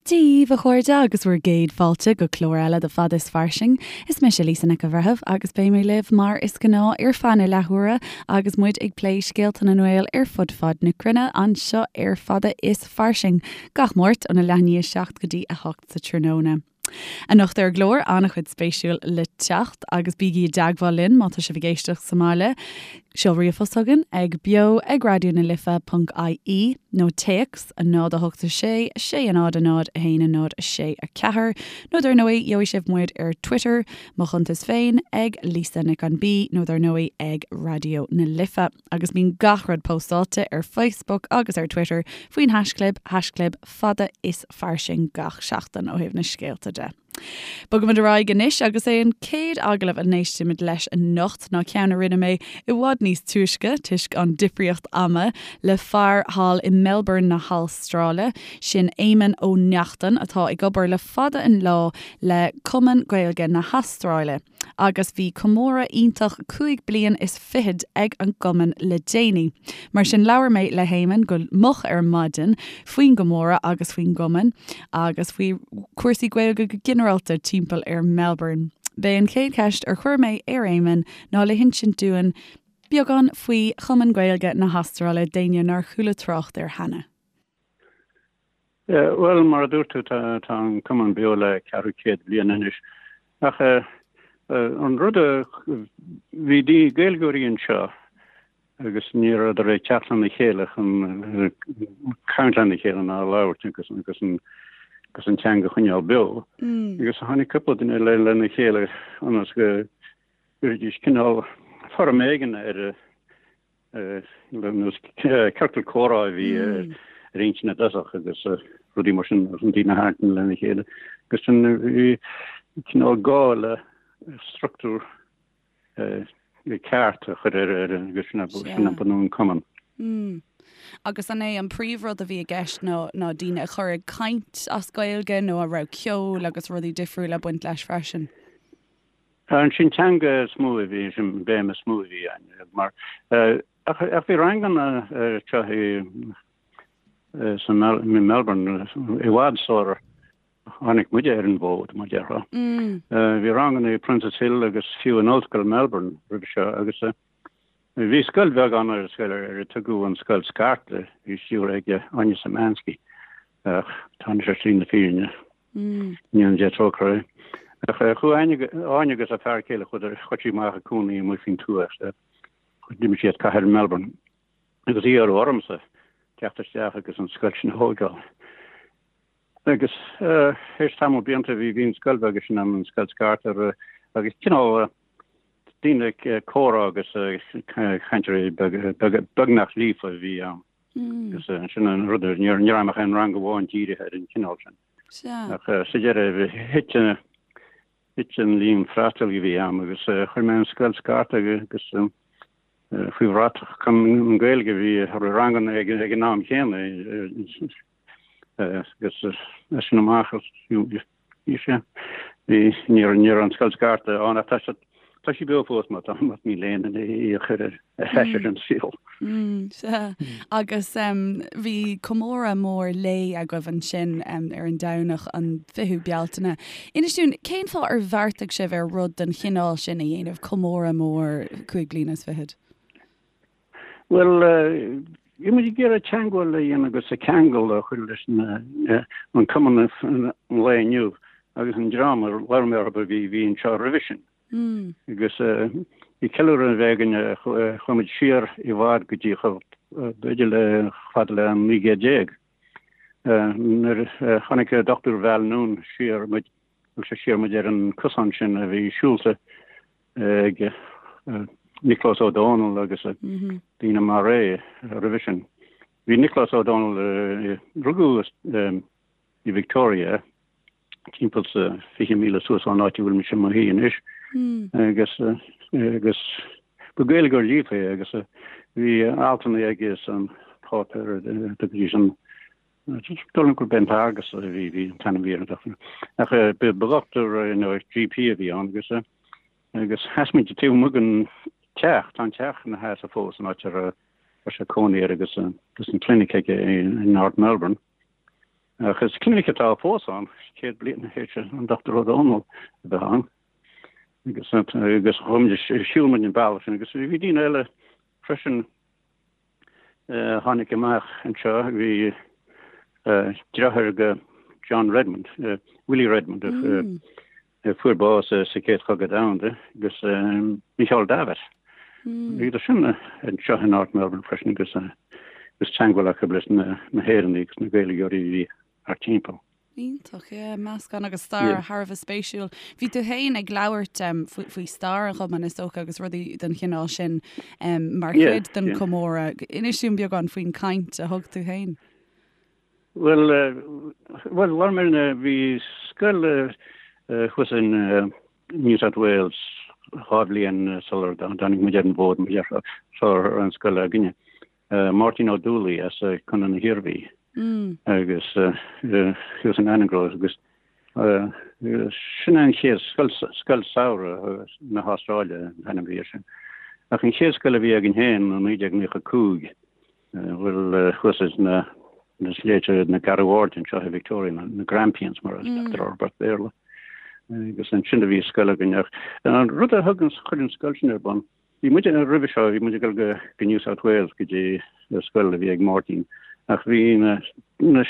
Dia daoibh, a chairde, agus bhur gcéad fáilte go clár eile de Fada is Fairsing. Is mise Lisa Nic an Bhreithimh agus beidh mé libh mar is gnáth ar feadh na leathuaire agus muid ag plé scéalta na nGael ar fud fad na cruinne anseo ar Fada is Fairsing gach Máirt óna leath i ndiaidh 7 go dtí 8 sa tráthnóna. Anocht ar an gclár, an-chuid spéisiúil le teacht agus bígí i dteagmháil linn má tá sibh ag éisteacht sa mbaile. Seol ríomhphost chugainn ag beo ag raidió na life ponc ie nó téacs 0 8 6 6 0 0 1 0 6 4 nó dar ndóigh gheobhaidh sibh muid ar Twitter, mo chuntas féin ag Lisa Nic an B nó dar ndóigh ag Raidió na Life agus bíonn gach rud póstáilte ar Facebook agus ar Twitter faoin haischlib, haischlib fada is fairsing gach seachtain ó thaobh na scéalta de. Bogaimid ar aghaidh anois agus é an chéad agallamh a n-éistimid leis anocht ná ceann a rinne mé i bhfad níos túisce, toisc an difríocht ama, le fear thall i Melbourne na hAstráile, sin Éamonn Ó Neachtain atá ag obair le fada an lá le Cumann Gaeilge na hAstráile. Agus bhí comóradh iontach 25 bliain ag an gcumann le déanaí. Mar sin labhair mé le hÉamonn go moch ar maidin faoin gcomóradh agus faoin gcumann agus faoi chúrsaí Gaeilge go ginearálta timpeall ar Melbourne. B'é an chéad cheist ar chuir mé ar Éamonn ná le hinsint dúinn beagán faoi Chumann Gaeilge na hAstráile d'éinne nár chuala trácht air cheana. Bhuel, mar a dúirt tú, tá an cumann beo le ceathrú céad bliain anois. Ach an rud a, bhí Gaeilgeoirí anseo agus ní rabhadar ag teacht lena chéile chun caint lena chéile ná labhairt agus agus an agus an teanga a choinneáil beo. Agus tháinig cúpla duine lena chéile ionas go gcuirfidís cineál foirm éigin ar nós ciorcal comhrá a bhí ar intinn i dtosach agus rudaí mar sin chun daoine a tharraingt lena chéile. Agus sin bhí cineál gá le struchtúr ceart a chur ar ar agus sin sin a bunú an cumann. Agus an é an príomhrud a bhí i gceist ná ná daoine a chur ag caint as Gaeilge nó an raibh ceol agus rudaí difriúla ag baint leis freisin? Ansin teanga is mó a bhí, sin béim is mó a bhí ann mar ach ach bhí ranganna anseo i san i Melbourne i bhfad sular tháinig muide ar an bhfód mar déarfá. Bhí ranganna i Princes Hill agus fiú in Ollscoil Melbourne roimhe seo agus bhí scoil bheag ann ar scoil ar a tugadh an Scoil Scairte, bhí stiúrtha ag Áine Szymanski ach tá anois ar shlí na fírinne. Go ndéana Dia trócaire uirthi. Ach chuaigh Áine agus a fear céile, chuadar, chuaigh sí amach ag cónaí amuigh faoin tuath. D'imigh sí as cathair Melbourne agus iarradh ormsa teacht isteach agus an scoil sin a thógáil. Agus théis tamall blianta bhí bhí an scoil bheag sin ann, an scoil scairte agus cineál daoine ag comhrá agus cainteoirí beagnach líofa a bhí ann. Agus sin an rud, ní raibh ach aon rang amháin dírithe ar an chineál sin. Ach sa deireadh, thit thit an líon freastail a bhí ann agus chuir mé an scoil scairte agus faoi bhratach Cumann Gaeilge bhí ranganna ag an am chéanna agus as sin amach bhí sé bhí ní raibh an scoil scairte ann ach tá tá sí beo fós má tá más mian le éinne í a chur ar ais ar an saol. Sea. Agus bhí comóradh mór lae agaibh ansin ar an Domhnach an 20ú Bealtaine. Inis dúinn, cén fáth ar bheartaigh sibh ar rud den chineál sin a dhéanamh, comóradh mór 25 bliana? Bhuel, bhí muid ag iarraidh teagmháil a dhéanamh agus ceangal a chur leis an cumann an lae inniu agus an dream a labhair mé orthu a bhí bhí anseo roimhe sin. Agus bhí ceiliúradh a bheith againn, chuaigh muid siar i bhfad go dtí chomh b'fhéidir le fada le an 19 céad. Nuair a chonaic Dr. Val Noone siar muid, thug sé siar muid ar an cosán sin a bhí siúlta ag Nioclás Ó Dónaill agus daoine mar é roimhe sin. Bhí Nioclás Ó Dónaill, rugadh i Victoria, timpeall sa 20 míle suas ón áit a bhfuil mise i mo shuí anois, agus agus ba Gaeilgeoir líofa é agus bhí altanna aige san páipéar a dtugaidís an Dóigh liom gurb é an tArgus a bhí bhí an t-ainm a bhí air ach ba dhochtúir nó GP a bhí ann agus agus sheas muid taobh amuigh den teach, tá an teach ina sheasamh fós an áit a raibh sé cónaí air agus agus an clinic aige in North Melbourne. Ach is clinic atá fós ann, 100 bliain tar éis an Dr. Ó Dónaill a bheith ann. Agus agus chuaigh muid, shiúil muid an bealach sin agus bhí daoine eile freisin a tháinig amach anseo, bhí deartháir go John Redmond, Willie Redmond, a fuair bás sa Chéad Chogadh Domhanda, agus Micheál Davitt. Bhíodar sin anseo in North Melbourne freisin agus agus teagmháil acu leis na hÉireannaigh agus na Gaeilgeoirí a bhí thart timpeall. Iontach, yeah, meascán agus stair thar a bheith spéisiúil. Bhí tú féin ag labhairt faoi stair an chumainn is dócha agus rudaí den chineál sin mar chuid den chomóradh. Inis dúinn beagán faoin chaint a thug tú féin. Bhuel, bhuel, labhair mé ar bhí scoil thuas in New South Wales dhá bhliain sular dtáinig muid ar an bhfód, mar déarfá, sular raibh an scoil againne. Máirtín Ó Dúlaí as Contae na hIarmhí agus thuas in Annangrove agus sin an chéad scoil, scoil samhraidh na hAstráile an t-ainm a bhí air sin. Ach an chéad scoil a bhí againn féin i 1995 bhuel thuas sna sléibhte na Garbh Aird anseo i Victoria, na Grampians mar a tugtar orthu as Béarla. Agus ansin a bhí scoil againn ach an rud a thug an chuir an scoil sin ar bun, bhí muid roimhe seo, bhí muid ag dul go go New South Wales go dtí scoil a bhí ag Máirtín ach bhí na na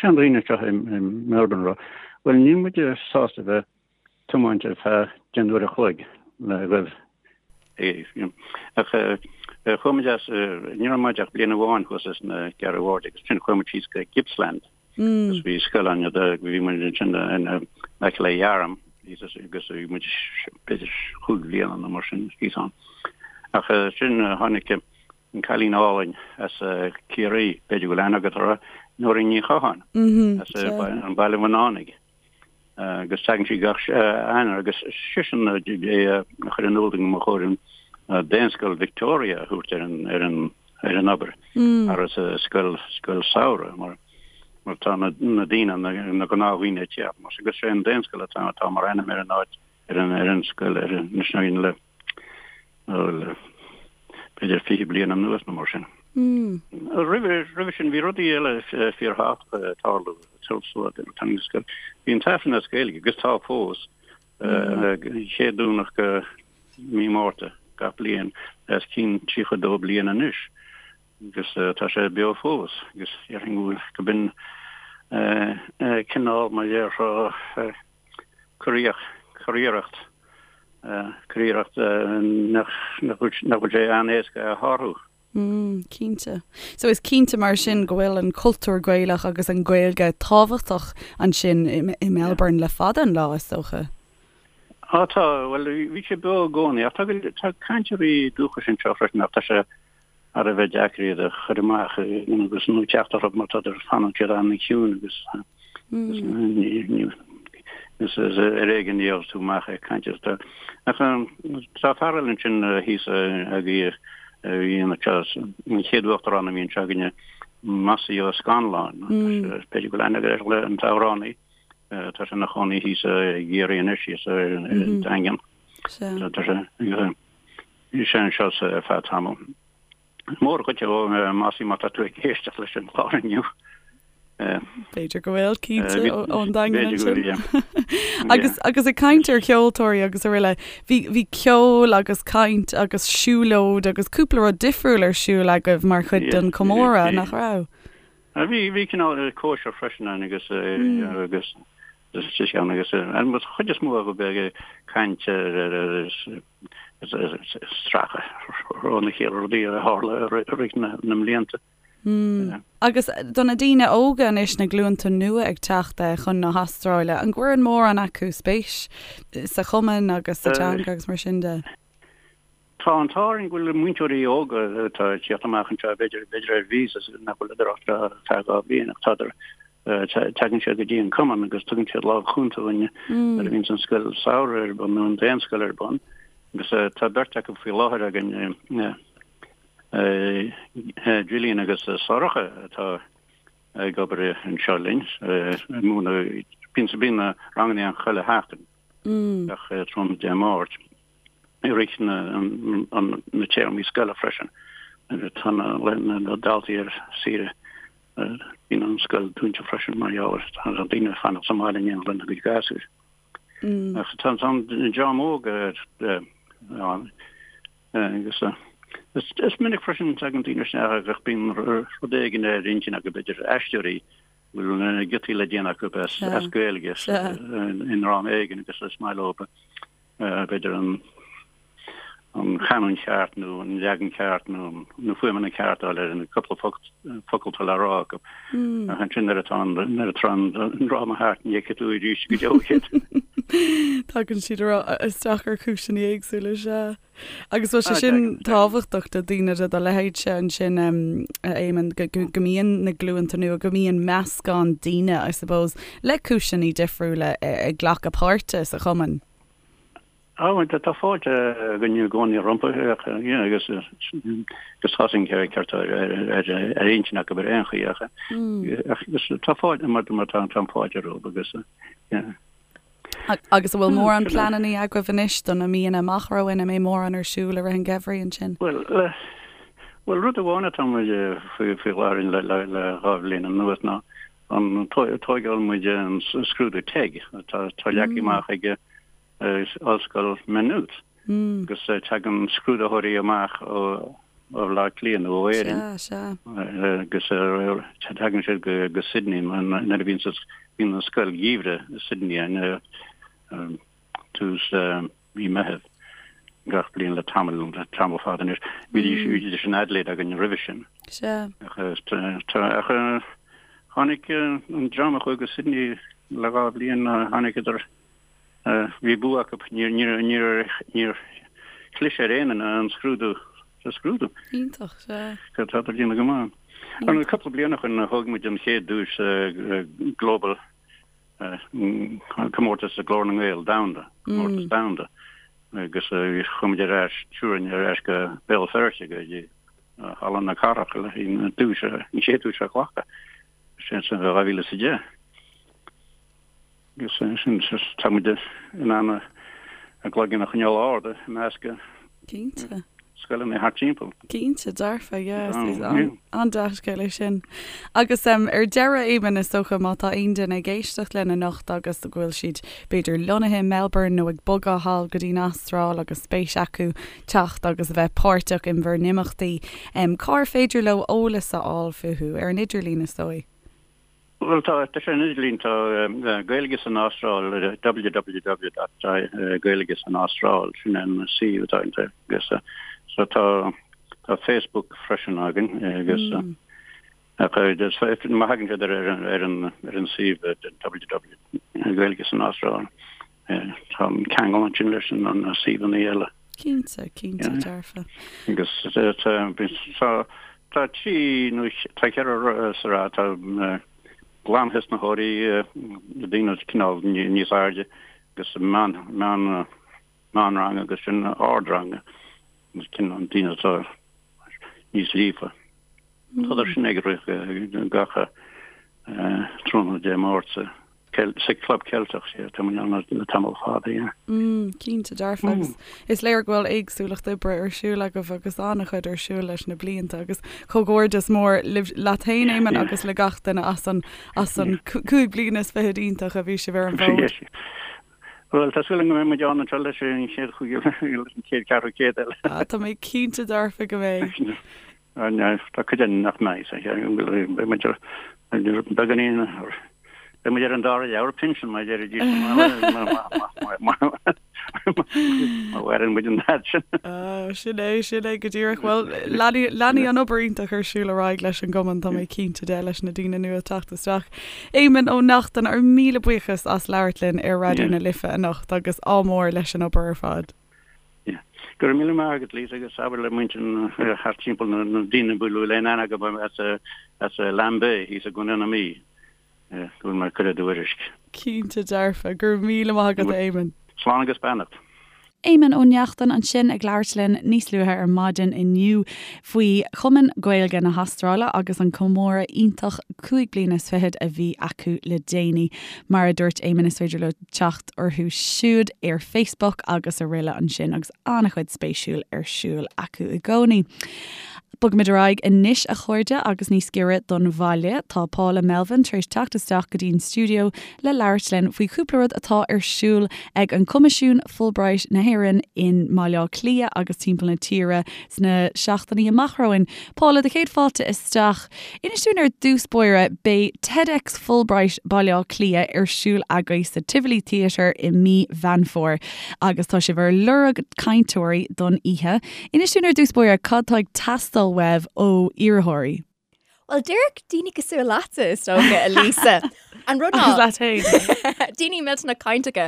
seandaoine anseo i Melbourne ag rá, bhuel níl muid sásta bheith tiomáint ar feadh deich n-uair a chloig le ghoibh ach chuaigh muid as, ní raibh muid ach bliain amháin thuas sna Garbh Aird agus ansin chuaigh muid síos go Gippsland agus bhí scoil ann bhí muid ansin in aice le Yarram agus bhí muid b'fhéidir chúig bhliana nó mar sin thíos ann. Ach sin tháinig an cailín álainn as Ciarraí, b'fhéidir go bhfuil aithne agat uirthi, Nóirín Ní Chatháin as an Baile Bhunánaigh. agus tagann sí gach Eanáir agus sise a chuir in iúl dúinn gur chóir an Daonscoil Victoria a thabhairt ar an ar an ar an obair agus scoil scoil samhraidh mar mar tá na na daoine na na gnáthdhaoine ag teacht mar agus sé an Daonscoil atá atá mar ainm ar an áit ar an ar an scoil ar an le Bhuel, b'fhéidir 20 bliain anuas nó mar sin. Roimhe, roimhe sin bhí rudaí eile fíorthábhachtacha ag tarlú sula dtáinig an scoil. Bhí an tAifreann as Gaeilge, agus tá fós, chéad Domhnach de mí Márta gach bliain, os cionn 32 bliain anois, agus tá sé beo fós, agus déarfainn go bhfuil, go b'in cineál, mar déarfá, curiarracht, curiarracht, curiarracht nach bhfuil sé an-éasca a shárú. Mm, cinnte. So is cinnte mar sin go bhfuil an cultúr Gaelach agus an Ghaeilge tábhachtach ansin i, i Melbourne le fada an lá, is dócha. Á tá, bhuel bhí sé beo i gcónaí ach tá, tá cainteoirí dúchais anseo freisin ach tá sé thar a bheith deacair iad a chur amach agus nó teacht orthu mar tá fanann siad an-chiúin agus is ar éigean a gheobhas tú amach ag caint is ach tá fear eile ansin thíos a bhí anseo an chéad uachtarán a bhí anseo againne Mossie Ó Scanláin b'fhéidir go bhfuil aithne agat air an t-amhránaí tá sé ina chónaí thíos i gCiarraí anois thíos ar an Daingean tá sé Bhí sé anseo ar feadh tamaill. Mór dhuit a Mossie má tá tú ag éisteacht leis an chlár inniu. B'fhéidir go bhfuil, cinnte, ón Daingean ansin. Agus agus ag caint ar cheoltóirí agus araile, bhí bhí ceol agus caint agus siúlóid agus cúpla rud difriúil ar siúl agaibh mar chuid den chomóradh, nach raibh? Bhí bhí cineál cóisir freisin ann agus agus agus an chuid is mó acu bheith ag caint ar stracadh óna chéile rudaí a tharla i rith na mblianta. Agus do na daoine óga anois, na glúnta nua ag teacht chun na hAstráile, an gcuireann mórán acu spéis sa chumann agus sa teanga agus mar sin de? Tá an t-ádh orainn go bhfuil múinteoirí óga atá ag tíocht amach anseo, b'fhéidir, b'fhéidir ar visas nach bhfuil ach ar feadh 2 bhliain ach tádar, tagann siad go dtí an cumann agus tugann siad lámh chúnta dúinn nuair a bhíonns an scoil samhraidh ar bun nó an daonscoil ar bun agus tá beirt acu faoi láthair againn, Gillian agus Sorcha atá ag obair anseo linn, ag múineadh, bíonn na ranganna ann chuile sheachtain, gach tráthnóna Dé Máirt. i rith na téarmaí scoile freisin. Tá na daltaí ar saoire. Bíonn an scoil dúnta freisin mar gheall ar tá daoine ag fanacht sa mbaile in éineacht lena gcuid gasúir. Ach tá an dream óg ann agus is minic freisin tagann daoine isteach agus bíonn rud éigin ar intinn acu, b'fhéidir aisteoirí, bhfuil giotaí le déanamh acu as Gaeilge i ndráma éigin agus is maith leo b'fhéidir an an chanúint cheart nó an leagan ceart nó na fuaimeanna ceart a fháil ar an cúpla focal atá le rá acu. Ach ansin nuair atá an nuair atá an dráma thart ní fheicfidh tú arís go deo iad. Tagann siad isteach ar chúiseanna éagsúla, sea. Agus bhfuil sé sin tábhachtach do daoine de do leithéidse ansin, a Éamonn, go mbíonn na glúnta nua, go mbíonn meascán daoine, I suppose, le cúiseanna difriúla ag glacadh páirte sa chumann? Á, tá fáilte againn i gcónaí rompu agus agus tá an ceart ar intinn acu ar aon chaoi ach agus tá fáilte mar mar tá an fáilte rompu agus yeah. Agus an bhfuil mórán pleananna agaibh anois do na míonna amach romhainn, an mbeidh mórán ar siúl i rith an gheimhridh ansin? Bhuel, bhuel rud amháin atá muid faoi faoi láthair le le le 2 bhliain anuas ná an tóigeáil muid an scrúdú TEG atá leagtha amach ag Ollscoil Maynooth agus tagann scrúdaitheoirí amach ó Bhaile Átha Cliath nó ó Éirinn agus tagann siad go Sydney nuair a bhíonn an scoil gheimhridh i Sydney in tús mí Meitheamh gach bliain le tamall, tamall fada anois. Bhídís in Adelaide againn roimhe sin. Sea. Ach tháinig an dream a chuaigh go Sydney le 2 bhliain, tháinigeadar, bhí bua acu, níor chlis ar aon duine an scrúdú, sa scrúdú. Iontach, sea. Tá ag déanamh go maith. Cúpla bliain ó shin thóg muid an chéad duais Global comórtas Ghlór na nGael domhanda, comórtas domhanda, agus chuaigh muid ar ais, triúr againn ar ais go Béal Feirste go dtí Halla na Cathrach le an duais, an chéad duais a ghlacadh, sin san 2010. Agus sin, tá muid in ann ár gcloigeann a choinneáil ard i measc Cinnte. scoileanna thart timpeall. Cinnte, dearfa, yeah, is an-dea-scéal é sin. Agus ar deireadh, Éamonn, is dócha, má tá aon duine ag éisteacht linn anocht agus go bhfuil siad, b'fhéidir, lonnaithe i Melbourne nó ag bogadh thall go dtí an Astráil agus spéis acu teacht agus a bheith páirteach in bhur n-imeachtaí, cár féidir leo eolas a fháil fúthu? Ar an idirlíon, is dóigh? Bhuel, tá, tá sé ar an idirlíon, tá Gaeilge san Astráil, www dot Gaeilge san Astráil, sin an suíomh atá againn agus so tá, tá Facebook freisin againn agus ach má thagann siad ar ar ar an ar an suíomh www Gaeilge san Astráil tá an ceangal ansin leis an na suíomhanna eile. Cinnte, cinnte dearfa. Agus tá tá trí nó tá ceithre sraith, tá glanthosnaitheoirí, daoine cineál níos airde agus meán meán meánrang agus sin ardrang agus cineál daoine atá níos líofa. Tá sin ag rith gach tráthnóna Dé Máirt sa Club Ceilteach, sea, tá muid ann le tamall fada, yeah. Mm, cinnte dearfa agus is léir go bhfuil éagsúlacht oibre ar siúl agaibh agus an-chuid ar siúl leis na blianta agus comhghairdeas mór libh leat féin, Éamonn, agus le gach duine as an as an 25 bliana iontach a bhí sibh ar an bhfód. Bhuel, tá súil agam go mbeidh muid ann anseo leis an chéad an chéad cheathrú céad eile. Ah, tá mé cinnte dearfa go mbeidh. Tá cuid againn nach mbeidh, beidh muid ar beagáinín, beidh muid ar an dara leabhar pinsean mar a deiridís má mhaireann muid an fhad sin. Sin é, sin é go díreach. Bhuel, leanfaidh an obair iontach ar siúl ar aghaidh leis an gcumann, tá mé cinnte de, leis na daoine nua ag teacht isteach. Éamonn Ó Neachtain, ár míle buíochas as labhairt linn ar Raidió na Life anocht agus ádh mór leis an obair ar fad. Go raibh míle maith agat, Lisa, agus abair le muintir thart timpeall na daoine a bhfuil aon aithne acu as Lambay thíos i gContae na Mí go bhfuil mé ag cur a dtuairisc. Cinnte dearfa. Go raibh míle maith agat, a Éamoinn. Slán agus beannacht. Éamonn Ó Neachtain ansin ag labhairt linn níos luaithe ar maidin inniu faoi Chumann Gaeilge na hAstráile agus an comóradh iontach 25 bliana a bhí acu le déanaí. Mar a dúirt Éamonn is féidir leo teacht orthu siúd ar Facebook agus araile ansin agus an-chuid spéisiúil ar siúl acu i gcónaí. Bogfaimid ar aghaidh anois, a chairde, agus níos giorra don bhaile. Tá Paula Melvin tar éis teacht isteach go dtí'n stiúideo le labhairt linn faoi chúpla rud atá ar siúl ag an Coimisiún Fulbright na hÉireann i mBaile Átha Cliath agus timpeall na tíre sna seachtainí amach romhainn. Paula, do chéad fáilte isteach. Inis dúinn ar dtús báire, beidh TEDx Fulbright Baile Átha Cliath ar siúl agaibh sa Tivoli Theatre i mí Mheán Fómhair agus tá sibh ar lorg cainteoirí don oíche. Inis dúinn ar dtús báire cad tá ag teastáil uaibh ó iarrthóirí. Bhuel, díreach daoine cosúil leatsa, is dócha, a Lisa. An rud ná... Agus leat féin. Daoine millteanach cainteacha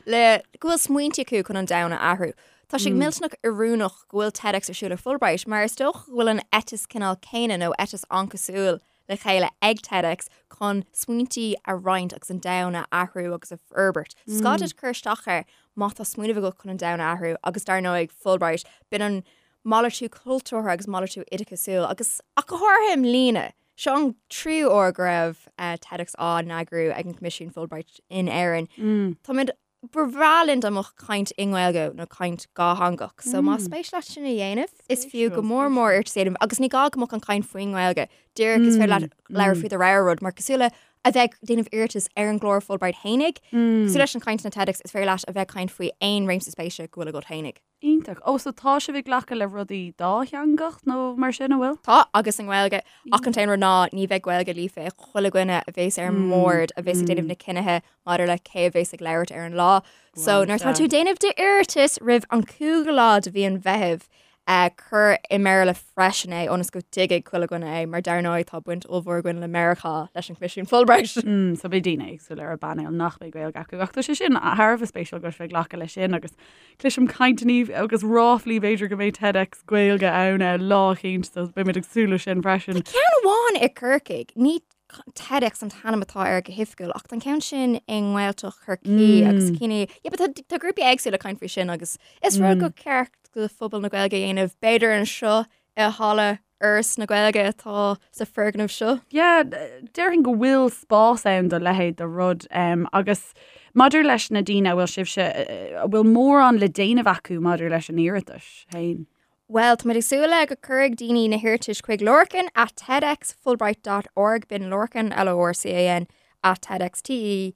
le go bhfuil smaointe acu chun an domhan a athrú. Tá sé millteanach oiriúnach go bhfuil TEDx ar siúl ag Fulbright mar is dócha go bhfuil an eiteas cineál céanna nó eiteas an-chosúil le chéile ag TEDx chun smaointe a roinnt agus an domhan a athrú agus a fhorbairt. So is gá duit cur isteach air má tá smaoineamh agat chun an domhan a athrú agus dar ndóigh Fulbright, b'in an malartú cultúrtha agus malartú oideachasúil agus ach go háirithe i mbliana. Seo an tríú uair go raibh TEDx á n-eagrú ag an Coimisiún Fulbright in Éirinn. Táimid Ba bhreá linn dá mbeadh caint i nGaeilge nó caint dhátheangach. So más spéis leat sin a dhéanamh, is fiú go mór mór iarratas a dhéanamh agus ní gá go mbeadh an chaint faoin nGaeilge. Díreach is féidir leat labhairt faoi do rogha rud mar cosúil le a bheith ag déanamh iarratas ar an gclár Fulbright fhéinig, cosúil leis an chaint na TEDx, is féidir leat a bheith ag caint faoi aon réimse spéise go bhfuil agat fhéinig. Iontach. Ó, so tá sibh ag glacadh le rudaí dátheangach nó mar sin, an bhfuil? Tá, agus i nGaeilge. Ach an t-aon rud ná ní bheidh Gaeilge líofa ag chuile dhuine a bhéas ar an mbord a bhéas ag déanamh na cinnithe maidir le cé a bhéas ag labhairt ar an lá. So nuair atá tú ag déanamh d'iarratais roimh an 5ú lá de mhí an Mheithimh, cuir i mBéarla freisin é ionas go dtuigfidh chuile dhuine é mar dar ndóigh tá baint ollmhór againn le Meiriceá leis an Choimisiún Fulbright. So beidh daoine éagsúla ar an bpainéal nach mbeidh Gaeilge acu ach tá sé sin thar a bheith spéisiúil go bhfuil sibh ag glacadh leis sin agus Cloisim cainteanna agus ráflaí b'fhéidir go mbeidh TEDx Gaeilge ann lá eicínt so beimid ag súil leis sin freisin. Tá ceann amháin i gCorcaigh, ní TEDx an t-ainm atá air go hoifigiúil ach tá an ceann sin i nGaeltacht Chorcaí agus cinn yeah, but tá tá grúpaí éagsúla ag caint faoi sin agus is rud gur ceart do phobal na Gaeilge a dhéanamh b'fhéidir anseo i halla Fhoras na Gaeilge atá sa foirgneamh seo. Yeah, déarfainn go bhfuil spás ann do leithéid de rud agus maidir leis na daoine a bhfuil sibhse, a bhfuil mórán le déanamh acu maidir leis an iarratas féin. Bhuel, táimid ag súil le go cuirfidh daoine na hiarratais chuig Lorcan at tedxfulbright dot org, b'in Lorcan, L-O-R-C-A-N, at tedx, T-E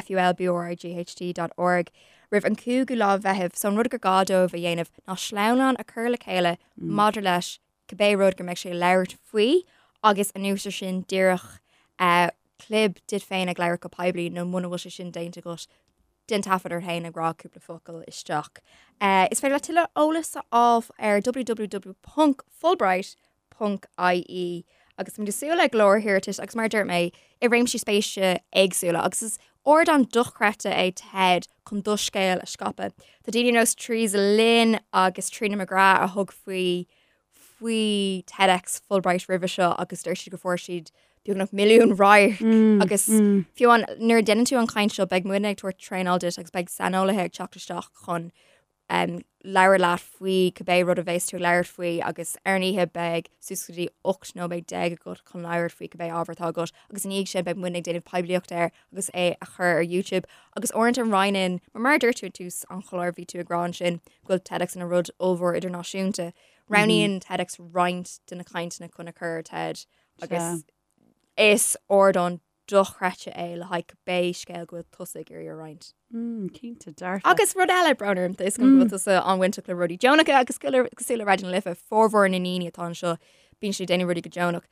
DXFULBRIGHT dot org roimh an 5ú lá Mheithimh so an rud gur gá dóibh a dhéanamh ná sleamhnán a chur le chéile maidir leis cibé rud go mbeidh sé ag labhairt faoi agus anuas ar sin díreach clib duit féin ag labhairt go poiblí nó muna bhfuil sé sin déanta agat déan taifead ort féin ag rá cúpla focal isteach. Is féidir leat tuilleadh eolas a fháil ar www.fulbright ponc ie agus táimid ag súil le go leor iarratais agus mar a dúirt mé i réimsí spéise éagsúla agus is ardán dochreidte é TED chun do scéal a scaipeadh. Tá daoine ar nós Theresa Lynn agus Tríona McGrath a thug faoi faoi TEDx Fulbright roimhe seo agus deir siad go fuair siad beagnach milliún radharc agus fiú amháin nuair a déanann tú an chaint seo beidh muidne ag tabhairt traenáil duit agus beidh saineolaithe ag teacht isteach chun labhairt leat faoi cibé rud a bheas tú ag labhairt faoi agus ar an oíche beidh suas go dtí 18 nóiméad agat chun labhairt faoi cibé ábhar atá agat agus ina dhiaidh sin beidh muidne ag déanamh poiblíocht air agus é a chur ar YouTube agus uaireanta roinneann mar mar a dúirt tú ag tús an chláir bhí tú ag rá ansin go bhfuil TEDx ina rud ollmhór idirnáisiúnta. Roghnaíonn TEDx roinnt de na cainteanna chun a chur ar TED agus is ardán dochreidte é le haghaidh cibé scéal go bhfuil tusa ag iarraidh a roinnt. Mm, cinnte, dearfa. Agus rud eile, brón orm, tá a fhios agam go bhfuil tusa an-bhainteach le rudaí deonacha agus cosúil le Raidió na Life, formhór na ndaoine atá anseo, bíonn siad ag déanamh rudaí go deonach.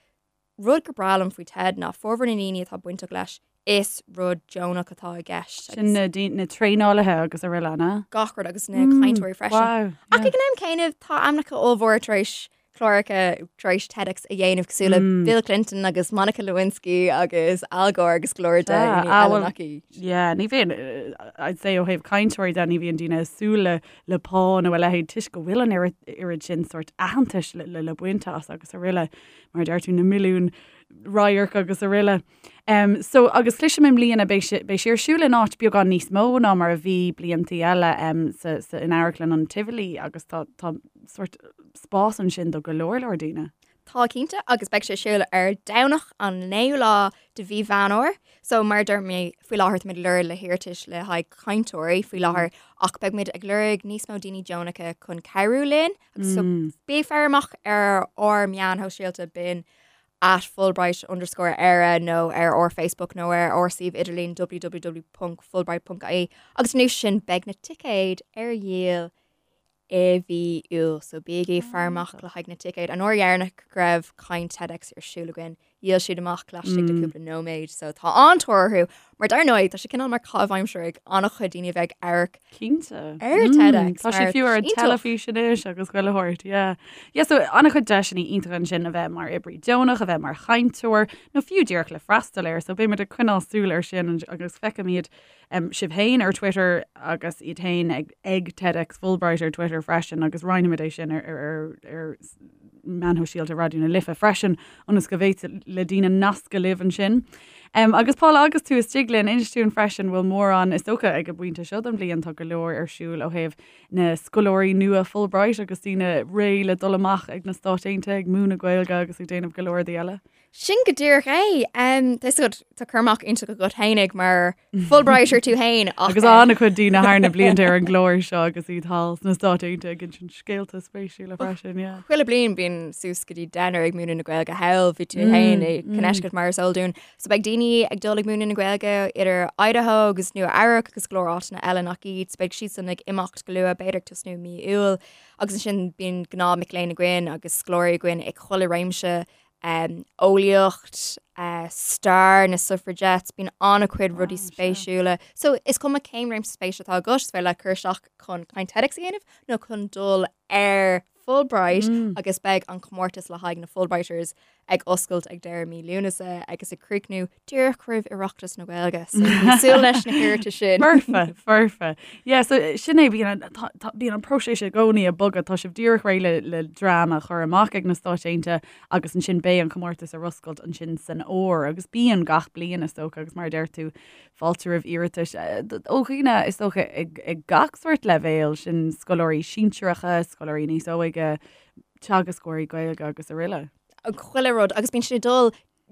Rud gur breá liom faoi TED ná formhór na ndaoine atá bainteach leis, is rud deonach atá i gceist. Sin na, na traenálaithe agus araile, an ea? Gach rud agus na cainteoirí freisin. Wow, yeah. Ach ag an am céanna, tá ainmneacha ollmhóra tar éis cláracha tar éis TEDx a dhéanamh cosúil le Bill Clinton agus Monica Lewinsky agus Al Gore agus go leor daoine eile nach iad. Yeah, ní bhíonn, I'd say ó thaobh cainteoirí de, ní bhíonn daoine ag súil le le pá nó a leithéid toisc go bhfuil an oiread sin sórt aitheantais le le le baint as agus araile, mar a deir tú, na milliúin radharc agus araile. Um, so, agus cloisim i mbliana beidh sé, beidh sé ar siúl in áit beagán níos mó ná mar a bhí bliantaí eile um, sa, sa, in Amharclann an Tivoli agus tá, tá sórt spás ansin do go leor leor daoine. Tá cinnte, agus beidh sé ar siúl ar Domhnach an 9ú lá de mhí Mheán Fhómhair. So mar a dúirt mé, faoi láthair táimid ag lorg le hiarratais le haghaidh cainteoirí faoi láthair ach beidh muid ag lorg níos mó daoine deonacha chun cabhrú linn. Agus so bí ag faire amach ar ár meáin shóisialta b'in at Fulbright underscore Éire nó ar ár Facebook nó ar ár suíomh idirlín www.fulbright.ie agus anuas sin beidh na ticéid ar dhíol i mhí Iúil, so bígí ag faire amach le haghaidh na ticéid. An uair dheireanach go raibh caint TEDx ar siúl againn, dhíol siad amach laistigh de cúpla nóiméad, so tá an-tóir orthu. Mar dar ndóigh, tá sé cineál mar caitheamh aimsire ag an-chuid daoine a bheith ag amharc Cinnte. ar TEDx. Tá sé fiú ar an teilifís anois agus chuile shórt, yeah. Yeah, so an-chuid deiseanna iontacha ansin a bheith mar oibrí deonach, a bheith mar chainteoir, nó fiú díreach le freastal air, so beimid ag coinneáil súil air sin agus feicfimid sibh féin ar Twitter agus iad féin ag ag TEDx Fulbright ar Twitter freisin agus roinnfimid é sin ar ar ar meáin shóisialta Raidió na Life freisin ionas go bhféadfadh le daoine nascadh libh ansin. Um, agus Paula agus tú istigh linn inis dúinn freisin bhfuil mórán is dócha ag an bpointe seo den bhliain tá go leor ar siúl ó thaobh na scoláirí nua Fulbright agus daoine réidh le dul amach ag na Stáit Aontaithe ag múineadh Gaeilge agus ag déanamh go leor rudaí eile. Sin go díreach é. Tá a fhios agat, tá cur amach iontach agat fhéinig mar Fulbrighter tú féin ach. Agus an-chuid daoine thar na blianta ar an gclár seo agus iad thall sna Stáit Aontaithe ag insint scéalta spéisiúla freisin, yeah. Chuile bliain bíonn suas go dtí deichniúr ag múineadh na Gaeilge thall, bhí tú féin i Connecticut mar is eol dúinn. So beidh daoine ag dul ag múineadh na Gaeilge idir Idaho agus Nua Eabhrac agus go leor áiteanna eile nach iad. So beidh siadsan ag imeacht go luath, b'fhéidir ag tosnú i mí Iúil. Agus ansin bíonn gnáth mic léinn againn agus scoláirí againn ag chuile réimse eolaíocht, stair na suffragettes, bíonn an-chuid rudaí spéisiúla. So is cuma cén réimse spéise atá agat, is féidir leat cur isteach chun caint TEDx a dhéanamh nó chun dul ar Fulbright agus beidh an comórtas le haghaidh na Fulbrighters ag oscailt ag deireadh mí Lúnasa agus ag críochnú díreach roimh Oireachtas na Gaeilge. So bí ag súil leis na hiarratais sin. Foirfe, foirfe. Yeah, so sin é, bíonn an, tá, tá, bíonn an próiseas i gcónaí ag bogadh, tá sibh díreach réidh le, le dream a chur amach ag na Stáit Aontaithe agus ansin beidh an comórtas ar oscailt ansin san fhómhar agus bíonn gach bliain is dócha agus mar a deir tú fáilte roimh iarratais ó dhaoine is dócha ag, ag gach sórt leibhéal, sin scoláirí sinsearacha, scoláirí níos óige, teagascóirí Gaeilge agus araile. Chuile rud agus bíonn siad ag dul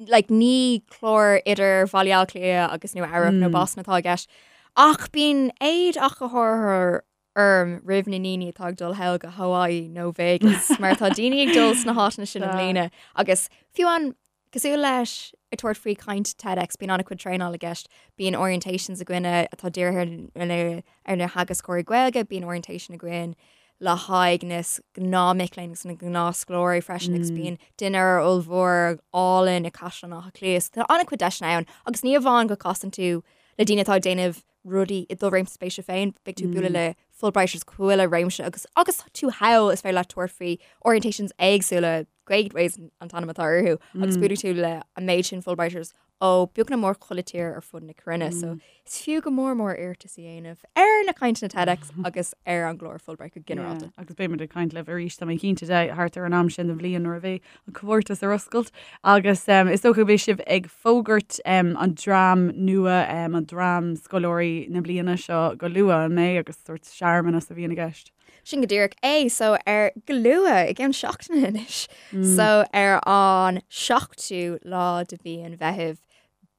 like, ní clár idir Bhaile Átha Cliath agus Nua Eabhrac nó Boston atá i gceist ach bíonn éad ach go háirithe orm roimh na ndaoine atá ag dul thall go Hawaii nó Vegas mar tá daoine ag dul sna háiteanna sin i mbliana agus fiú an cosúil leis ag tabhairt faoi caint TEDx bíonn an-chuid traenáil i gceist, bíonn orientations againne atá dírithe ar na ar na theagascóirí Gaeilge, bíonn orientation againn le haghaidh na gnáth mic léinn agus na gnáthscoláirí freisin agus bíonn dinnéar ollmhór álainn i Caisleán Átha Cliath. So tá an-chuid deiseanna ann agus ní amháin go casann tú le daoine atá ag déanamh rudaí i do réimse spéise féin, beidh tú ag bualadh le Fulbrighters chuile réimse agus agus tú thall is féidir leat tabhairt faoi orientations éagsúla, Gateways an t-ainm atá orthu, agus buailfidh tú le an méid sin Fulbrighters ó beagnach mór chuile tír ar fud na cruinne. So is fiú go mór mór iarratas a dhéanamh ar na cainteanna TEDx agus ar an gclár Fulbright go ginearálta. Yeah, agus beimid ag caint libh arís, tá mé cinnte de, thart ar an am sin den bhliain nuair a bheidh an comórtas ar oscailt agus is dócha go mbeidh sibh ag fógairt an dream nua, an dream scoláirí na bliana seo go luath, an mbeidh, agus sórt searmanas a bhíonn i gceist. Sin go díreach é, so ar go luath i gceann seachtaine anois. So ar an seachtú lá de mhí an Mheithimh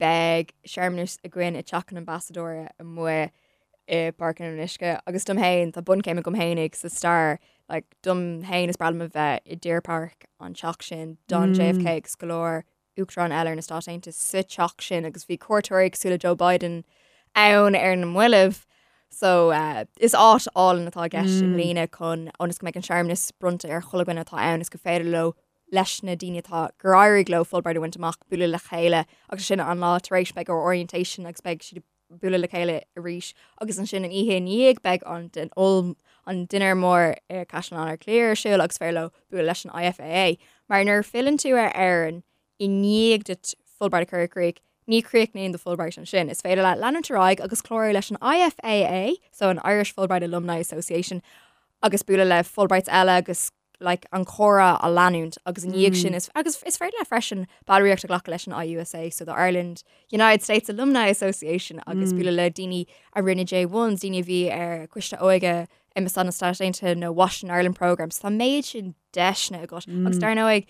beidh searmanas againn i dTeach an Ambasadóra amuigh i bPáirc an Fhionnuisce agus dom féin, tá bunchéim agam fhéinig sa stair, like, dom féin is breá liom a bheith i Deer Park an teach sin, d'fhan JFK agus go leor uachtarán eile ar na Stáit Aontaithe sa teach sin agus bhí cuairteoirí cosúil le Joe Biden ann ar na mallaibh. So uh, is áit álainn atá i gceist i mbliana chun ionas go mbeidh an searmanas bronnta ar chuile dhuine atá ann is gur féidir leo leis na daoine atá gur éirigh leo Fulbright a bhaint amach bualadh le chéile agus sin an lá tar éis beidh orientation agus beidh siad bualadh le chéile arís agus ansin an oíche i ndiaidh beidh an an dinnéar mór i Caisleán Átha Cliath ar siúl agus féidir leo bualadh leis an IFAA. Mar nuair a filleann tú ar Éirinn i ndiaidh duit Fulbright a chur i gcrích, ní chríochnaíonn do Fulbright ansin. Is féidir leat leanúint ar aghaidh agus clárú leis an IFAA, so an Irish Fulbright Alumni Association, agus bualadh le Fulbrights eile agus like, an comhrá a leanúint agus i ndiaidh sin is agus is féidir leat freisin ballraíocht a ghlacadh leis an IUSA, so the Ireland United States Alumni Association agus bualadh le daoine a rinne J1s, daoine a bhí ar Coiste Óige Ambasáid na Stáit Aontaithe nó Washington Ireland Programme. So tá méid sin deiseanna agat agus dar ndóigh.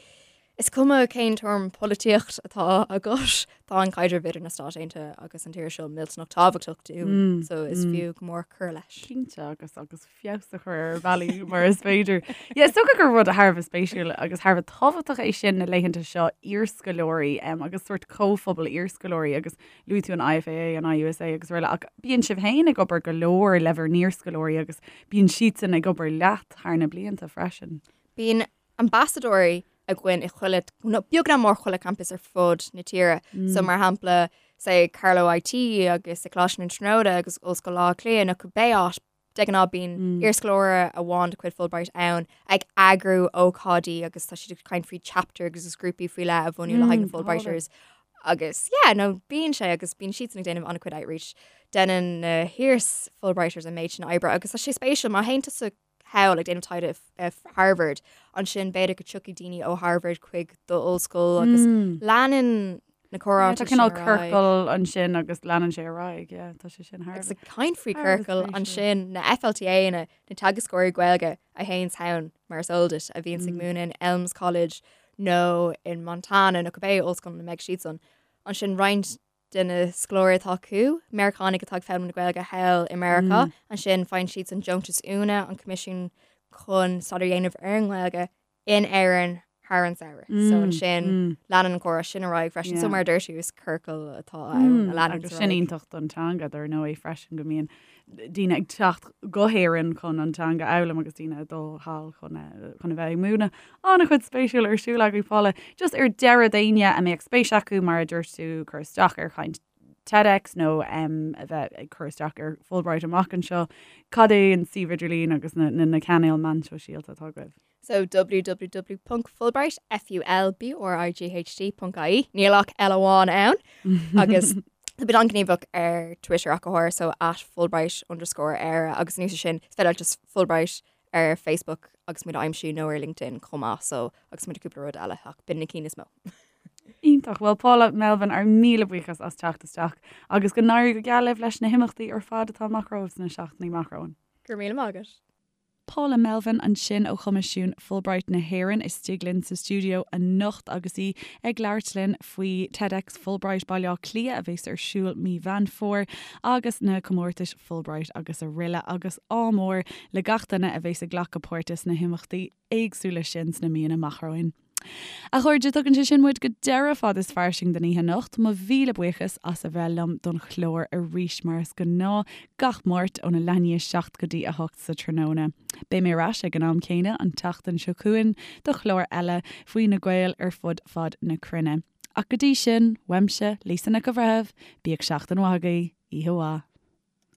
Is cuma cén tuairim polaitíocht atá agat, tá an caidreamh idir na Stáit Aontaithe agus an tír seo millteanach tábhachtach dúinn, so is fiú go mór cur leis. Cinnte, agus agus feabhas a chur ar bhealaí mar is féidir. Yeah, is dócha gur rud thar a bheith spéisiúil agus thar a bheith tábhachtach é sin na laethanta seo iarscoláirí agus sórt comhphobal iarscoláirí agus luaigh tú an IFAA, an IUSA agus araile ach bíonn sibh féin ag obair go leor le bhur n-iarscoláirí agus bíonn siadsan ag obair leat thar na blianta freisin. Bíonn ambasadóirí againn i chuile, nó beag nach mór chuile campus ar fud na tíre. So mar shampla, say Carlow IT agus i Coláiste na Tríonóide agus Ollscoil Átha Cliath nó cibé áit, de ghnáth bíonn iarscoláire amháin de chuid Fulbright ann ag eagrú ócáidí agus tá siad ag caint faoi chapter agus is grúpaí faoi leith a bhunú le haghaidh na Fulbrighters. Agus yeah, no bíonn sé agus bíonn siadsan ag déanamh an-chuid outreach. Déanann na hiar-Fulbrighters an méid sin oibre agus tá sé spéisiúil má théann tusa thall ag déanamh taighde i Harvard, ansin b'fhéidir go dtiocfaidh daoine ó Harvard chuig d'ollscoil agus leanann na comhráite sin ar aghaidh. Tá cineál ciorcal ansin agus leanann sé ar aghaidh, yeah, tá sé sin thar. Agus ag caint faoi ciorcal ansin na FLTA na na teagascóirí Gaeilge a théanns ann mar is eol duit a bhíonns ag múineadh in Elms College nó in Montana nó cibé ollscoil ina mbeidh siadsan. Ansin roinnt de na scoláirí atá acu, Meiriceánaigh atá ag foghlaim na Gaeilge thall i Meiriceá, ansin faigheann siadsan deontas Úna, an Coimisiún chun staidéar a dhéanamh ar an nGaeilge in Éirinn thar an samhradh. So ansin leanann an comhrá sin ar aghaidh freisin. So mar a dúirt tú, is ciorcal atá ann a leanann ar aghaidh. Agus sin iontach don teanga dar ndóigh freisin go mbíonn daoine ag teacht go hÉirinn chun an teanga a fhoghlaim agus daoine ag dul thall chun chun a bheith ag múineadh. An-chuid spéisiúil ar siúl agaibh Paula. Just ar deireadh d'éinne a mbeadh spéis acu mar a dúirt tú cur isteach ar chaint TEDx nó um, a bheith ag cur isteach ar Fulbright amach anseo, cad é an suíomh idirlín agus na, na, na cainéil meán sóisialta atá agaibh? So www.fulbright, F-U-L-B-R-I-G-H-T, ponc IE. Níl ach L amháin ann. Agus tá muid an-ghníomhach ar Twitter ach go háirithe, so at Fulbright underscore Éire agus anuas air sin, is féidir leat just Fulbright ar Facebook agus muid a aimsiú nó ar LinkedIn chomh maith, so agus muid cúpla rud eile ach b'in na cinn is mó. Iontach. Bhuel Paula Melvin, ár míle buíochas as teacht isteach agus go n-éirí go geal libh leis na himeachtaí ar fad atá amach romhaibh sna seachtainí amach romhainn. Go raibh míle maith agat. Paula Melvin ansin ó Choimisiún Fulbright na hÉireann istigh linn sa stiúideo anocht agus í ag labhairt linn faoi TEDx Fulbright Baile Átha Cliath a bheas ar siúl mí Mheán Fómhair agus na comórtais Fulbright agus araile agus ádh mór le gach duine a bheas ag glacadh páirte sna himeachtaí éagsúla sin sna míonna amach romhainn. A chairde, tugann sé sin muid go deireadh Fad is Fairsing don oíche anocht. Mo mhíle buíochas as a bheith liom don chlár arís, mar is gnáth, gach Máirt óna leath i ndiaidh 7 go dtí 8 sa tráthnóna. Beidh mé ar ais ag an am céanna an tseachtain seo chugainn do chlár eile faoi na Gaeil ar fud fad na cruinne. Ach go dtí sin, uaimse, Lisa Nic an Bhreithimh, bíodh seachtain mhaith agaibh, oíche mhaith.